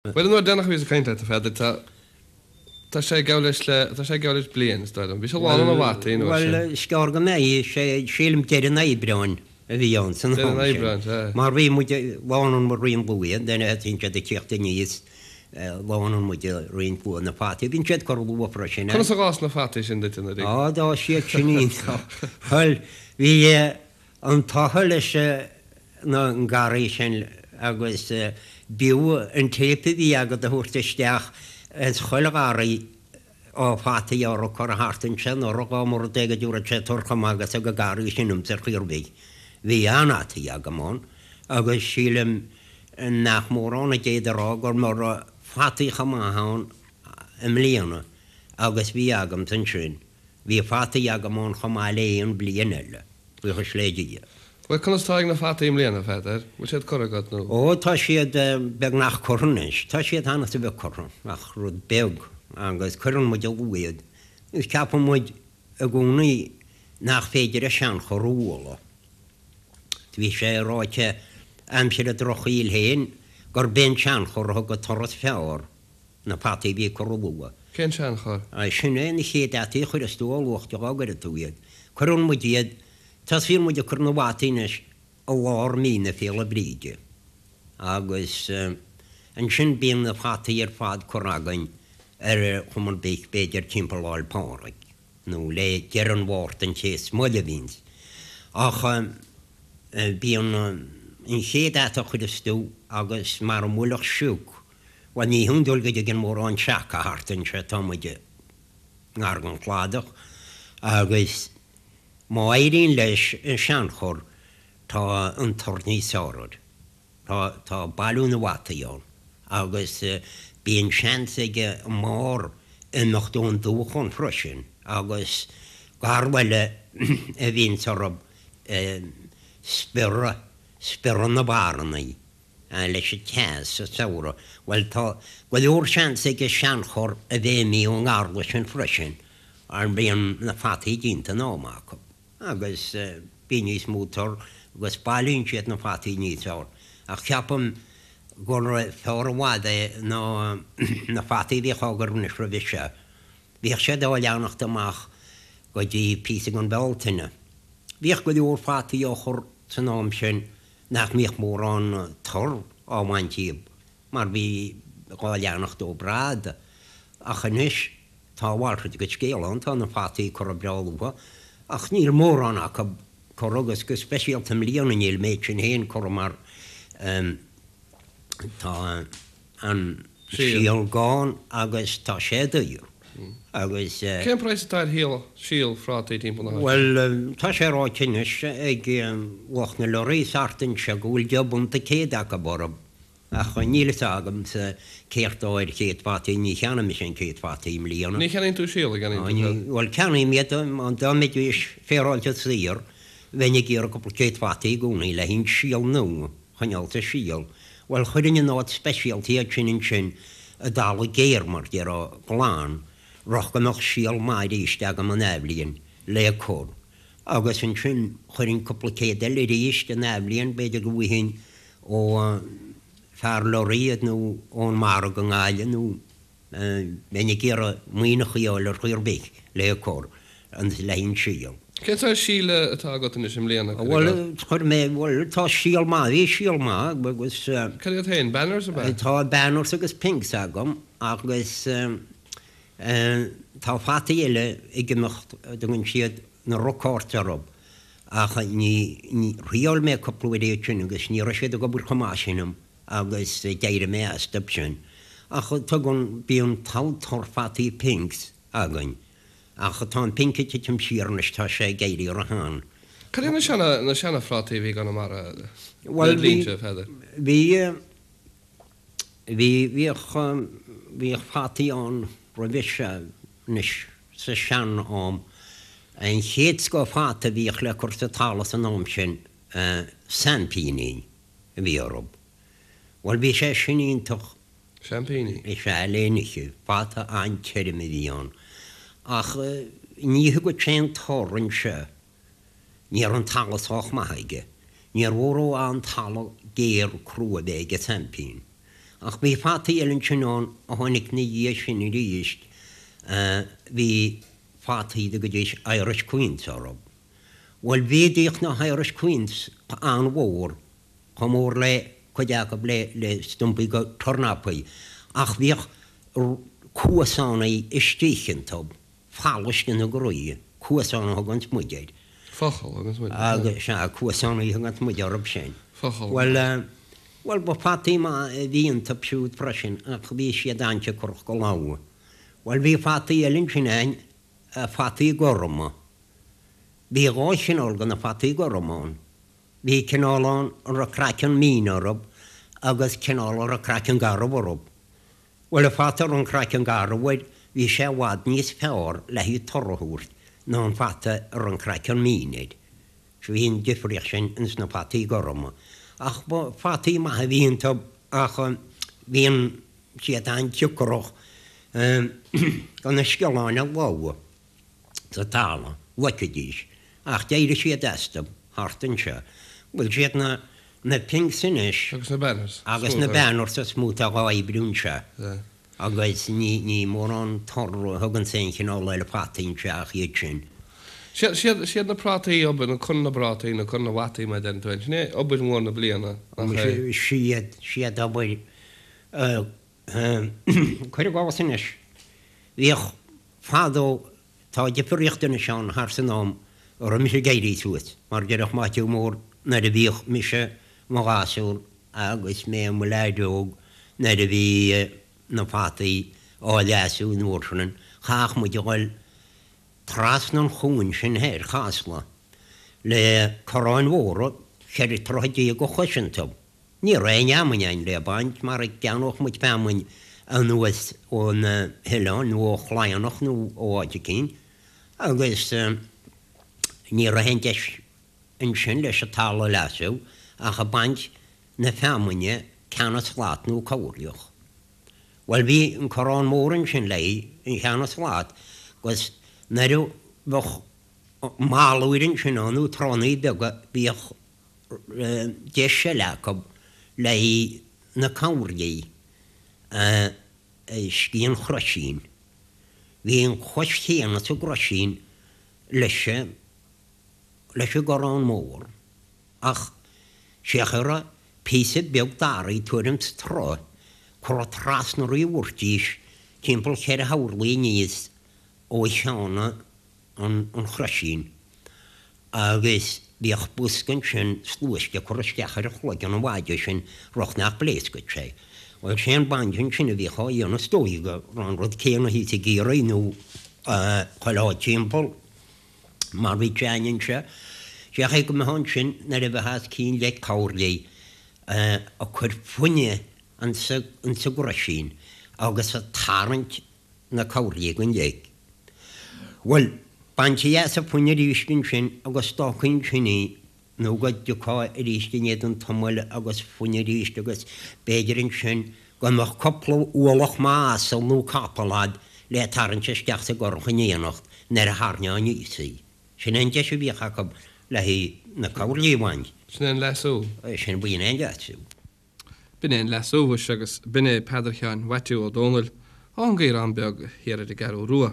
Bhuel, an uair deireanach a bhíos ag caint leat, a Pheadair, tá, tá sé ag gabháil leis le, tá sé ag gabháil leis bliain, is dóigh liom. Bhí sé lán na bhfataí an uair sin. Bhuel, is gearr go mbeidh sé, sílim deireadh an Aibreáin a bhí ann san am Deireadh an sin. Aibreáin, sea. Mar bhí muid, lánann muid roinnt luath, then thosaíonn siad ag tíocht aníos, lánann muid roinnt luath na fataí, bíonn siad curtha luath freisin. Conas a dh'fhás na fataí sin duit anuraidh? Á, d'fhás siad sin iontach. Bhuel, bhí an t-ádh leis na garraí sin agus b'fhiú an téip a bhí agat a thabhairt isteach ins chuile gharraí ó fataí a raibh curtha thart anseo anuraidh dá mba rud é go dtabharfadh sé tor chomh maith agus ag an garraí sin ionsa ar chaoi ar bith. Bhí an-fhataí agam ann agus sílim nach mórán a d'fhéadfadh a rá go raibh fataí chomh maith ann i mbliana agus bhí agamsa ansin. Bhí fataí agam ann chomh maith le aon bhliain eile. Buíochas le Dia. Bhuel, conas tá ag na fataí i mbliana, a Pheadair? Bhfuil siad curtha agat nó? Ó, tá siad beagnach curtha anois. Tá siad cheana a bheith curtha, ach rud beag, agus cuireann muid luath iad. Agus ceapann muid i gcónaí nach féidir an seanchor a bhualadh. Bhí sé ráite aimsir an drochshaoil féin gurb é an seanchor a thug an toradh is fearr. na fataí a bhí curtha luath. Cén seanchor? Sin é na chéad fhataí a chuireas tú ó luath dá gcuireann tú iad. Cuireann muid iad, tosaíonn muid ag cur na bhfataí anois i lár mí na Féile Bríde agus ansin bíonn na fataí ar fad curtha againn ar chuma ar bith b'fhéidir timpeall Lá'l Pádraig. nó le deireadh an Mhárta an té is moille a bhíonns. Ach bíonn an chéad fhata a chuireas tú agus mara mbuailfeadh sioc, bhuel ní hiondúil go dtigeann mórán seaca thart anseo, tá muid i ngar don chladach, agus má éiríonn leis an seanchur tá an tor níos fearr air. Tá, tá bailiú na bhfataí ann agus bíonn seans ag an mbarr imeacht ón dúchan freisin agus garla eile a bhíonns orthu spiorradh, spiorradh na bparrannaí leis an teas sa samhradh. Bhuel tá go leor seans ag an seanchur a bheith imithe ón ngarla sin freisin mar bíonn na fataí déanta in am acu. agus bíonn níos mó tor agus bailíonn siad na fataí níos fearr. Ach ceapaim gur fearr i bhfad é ná na fataí a bhíodh á gcur anois roimhe seo. Bhíodh siad á leanacht amach go dtí píosa den Bhealtaine. Bhíodh go leor fataí á chur san am sin nach mbíodh mórán tor á bhaint díobh mar bhí dhá leanacht ó brad. Ach anois Tá a mhalrait de scéal ann, tá na fataí curtha breá luath, ach níl mórán acu curtha agus go speisialta i mbliana níl an méid sin féin curtha mar tá an síol gann agus tá sé daor agus. Cén praghas atá ar shíol, síol phrátaí timpeall na háite? Bhuel, tá sé ráite anois ag lucht na lorraí thart anseo go bhfuil deich bpunt an céad acu orthu. Ach níl fhios agamsa céard tá ar chéad fataí, ní cheannaigh mise aon chéad fataí i mbliana. Ní cheannaíonn tú síol, a gceannaíonn tú céard? Bhuel, ceannaím iad, dá mbeidís féaráilte saor, bheinn ag iarraidh cúpla céad fataí i gcónaí le haghaidh síol nua a choinneáil sa síol. Bhuel, chuirfinn in áit speisialta iad sin ansin i dtalamh géar, mar déarfá, glan, rud go mbeadh síol maith arís agam an athbhliain le cur. Agus ansin chuirfinn cúpla céad eile arís an athbhliain, b'fhéidir go bhfaighinn ó fear lorraí iad nó ón margadh i nGaillimh nó bheinn ag iarraidh muineachaí a fháil ar chaoi ar bith le cur le haghaidh an síol. Cén saghas síl atá agat anois i mbliana, cuir i gcás? Bhuel, chuir mé, bhuel, tá síol maith, bhí síol maith agus. Cad iad féin, Banners ab ea? Tá Banners agus Pinks agam agus tá fataí eile ag imeacht a dtugann siad na Rockforts orthu ach ní, thriáil mé cúpla uair iad sin agus ní raibh siad ag obair chomh maith sin dom agus d'éirigh mé astu sin. Ach tugann, bíonn togha tor fataí Pinks againn ach tá an Pink ag titim siar anois, tá sé ag éirí ró-shean. Cad iad na seana, na seana-phrátaí a bhí i gConamara le do linnse, a Pheadair? Bhí, bhí, bhíodh, bhíodh fataí ann roimhe seo anois sa sean-am. An chéad scoth fata a bhíodh le cur sa talamh san am sin, seaimpíní a bhí orthu. Bhuel, bhí sé sin iontach. Seaimpíní? Is ea, le n-ithe. Fata an-tirim a bhí ann. Ach ní thugadh sé an tor anseo. Ní raibh an talamh sách maith aige. Níor mhór ó an talamh géar crua a bheith ag an seaimpín. Ach bhí fataí eile ansin ann a tháinig 'na dhiaidh sin arís, bhí fataí a dtugaidís Irish Queens orthu. Bhuel bhíodh na hIrish Queens an-mhór, chomh mór le cuid acu le stumpaí go tornapaí, ach bhíodh cuasánaí istigh iontu, falais ina gcroí, cuasán a thuganns muid air. Focal a thuganns muid air. Agus, sea, cuasánaí a thuganns muid orthu sin. Focal. Bhuel, bhuel, ba fataí maith a bhí iontu siúd freisin, ach bhí siad an-siocrach go lá. Bhuel, bhí fataí eile ansin a'inn, fataí gorma. Bhí dhá chineál de na fataí gorma ann. Bhí cineál ann a raibh craiceann mín orthu agus cineál a raibh craiceann garbh orthu. Bhuel, an fata a raibh an craiceann garbh air, bhí sé i bhfad níos fearr le haghaidh toradh a thabhairt ná an fata a raibh an craiceann mín air. So bhí an difríocht sin ins na fataí gorma. Ach ba fataí maithe a bhí iontu ach bhí an, siad an-siocrach do na sciolláin a lobhadh. sa talamh, loicfidís, ach d'éirigh siad astu thart anseo. Bhuel, siad na, na pinks anois. Agus na banners. Agus na banners is mó atá dhá oibriú anseo. Agus ní, ní mórán toradh a thuganns aon chineál eile fataí anseo ach iad sin. Siad, siad, siad na prátaí obair, nó cur na bprátaí, nó cur na bhfataí mar a deireann tú féin. Sin é obair mhór na bliana, nach é? Siad, siad obair, cuir i gcás anois, bhíodh Fadó, tá difríocht anois ann thar san am a raibh mise ag éirí suas, mar déarfadh Maitiú Mór nuair a bhíodh mise i mo ghasúr agus mé i mo leaid óg nuair a bhí na fataí á leasú an uair sin, chaithfeadh muid a dhul trasna an chuain sin thoir, Chasla, le corráin mhóra, 14 troithe de chois iontu. Ní raibh aon fheamainn ann le baint mar a gceannódh muid feamainn anuas ó na hoileáin nó ó Chladhnach nó ó áit eicínt agus ní raibh aon deis ansin leis an talamh a leasú ach ag baint na feamainne ceann slat nó corrliach. Bhuel bhí an corrán mór ansin le an cheann slat agus nuair a bheadh malúir ansin ann nó tránnaí beaga bhíodh deis eile acu le haghaidh na corrlaí istigh an chroisín. Bhí an chois chéanna sa gcroisín leis an leis an gcorrán mór ach sé a raibh píosa beag daraí tuairim 's troigh curtha trasna uirthi a bhfuairtís timpeall cheithre horlaí aníos ó cheann an chroisín agus bhíodh bosca ansin sluaiste curtha isteach ar chloigeann an mhaide sin rud nach bpléascfadh sé. Bhuel, sé an baint ansin a bhíodh á dhéanamh is dóigh go raibh an rud céanna thíos i gCiarraí nó chuile áit timpeall mar bhí sé a'inn anseo. Sé an chaoi go mbeifeá ansin nuair a bheifeá os cionn leic corrlaí ag cur fuinne insa gcroisín agus ag tarraingt na corrlaí den leic. Bhuel, baintí as an fuinne arís ansin agus d'fhágfaí ansin í nó go dtiocfá arís i ndiaidh an tamaill agus fuinne arís agus b'fhéidir ansin go mbeadh cúpla ualach maith asal nó capall a'd le tarraingt isteach sa gcurach in éineacht nuair a tharraingeofá aníos í. Sin é an deis a bhíodh acu le haghaidh na corrlaí a bhaint. Sin é an leasú. Sin, b'in é an leasú. B'in é an leasú mhuise agus b'in é Peadar Sheáin Mhaitiú Ó Dónaill ón gCaorán Beag thiar ar an gCeathrú Rua.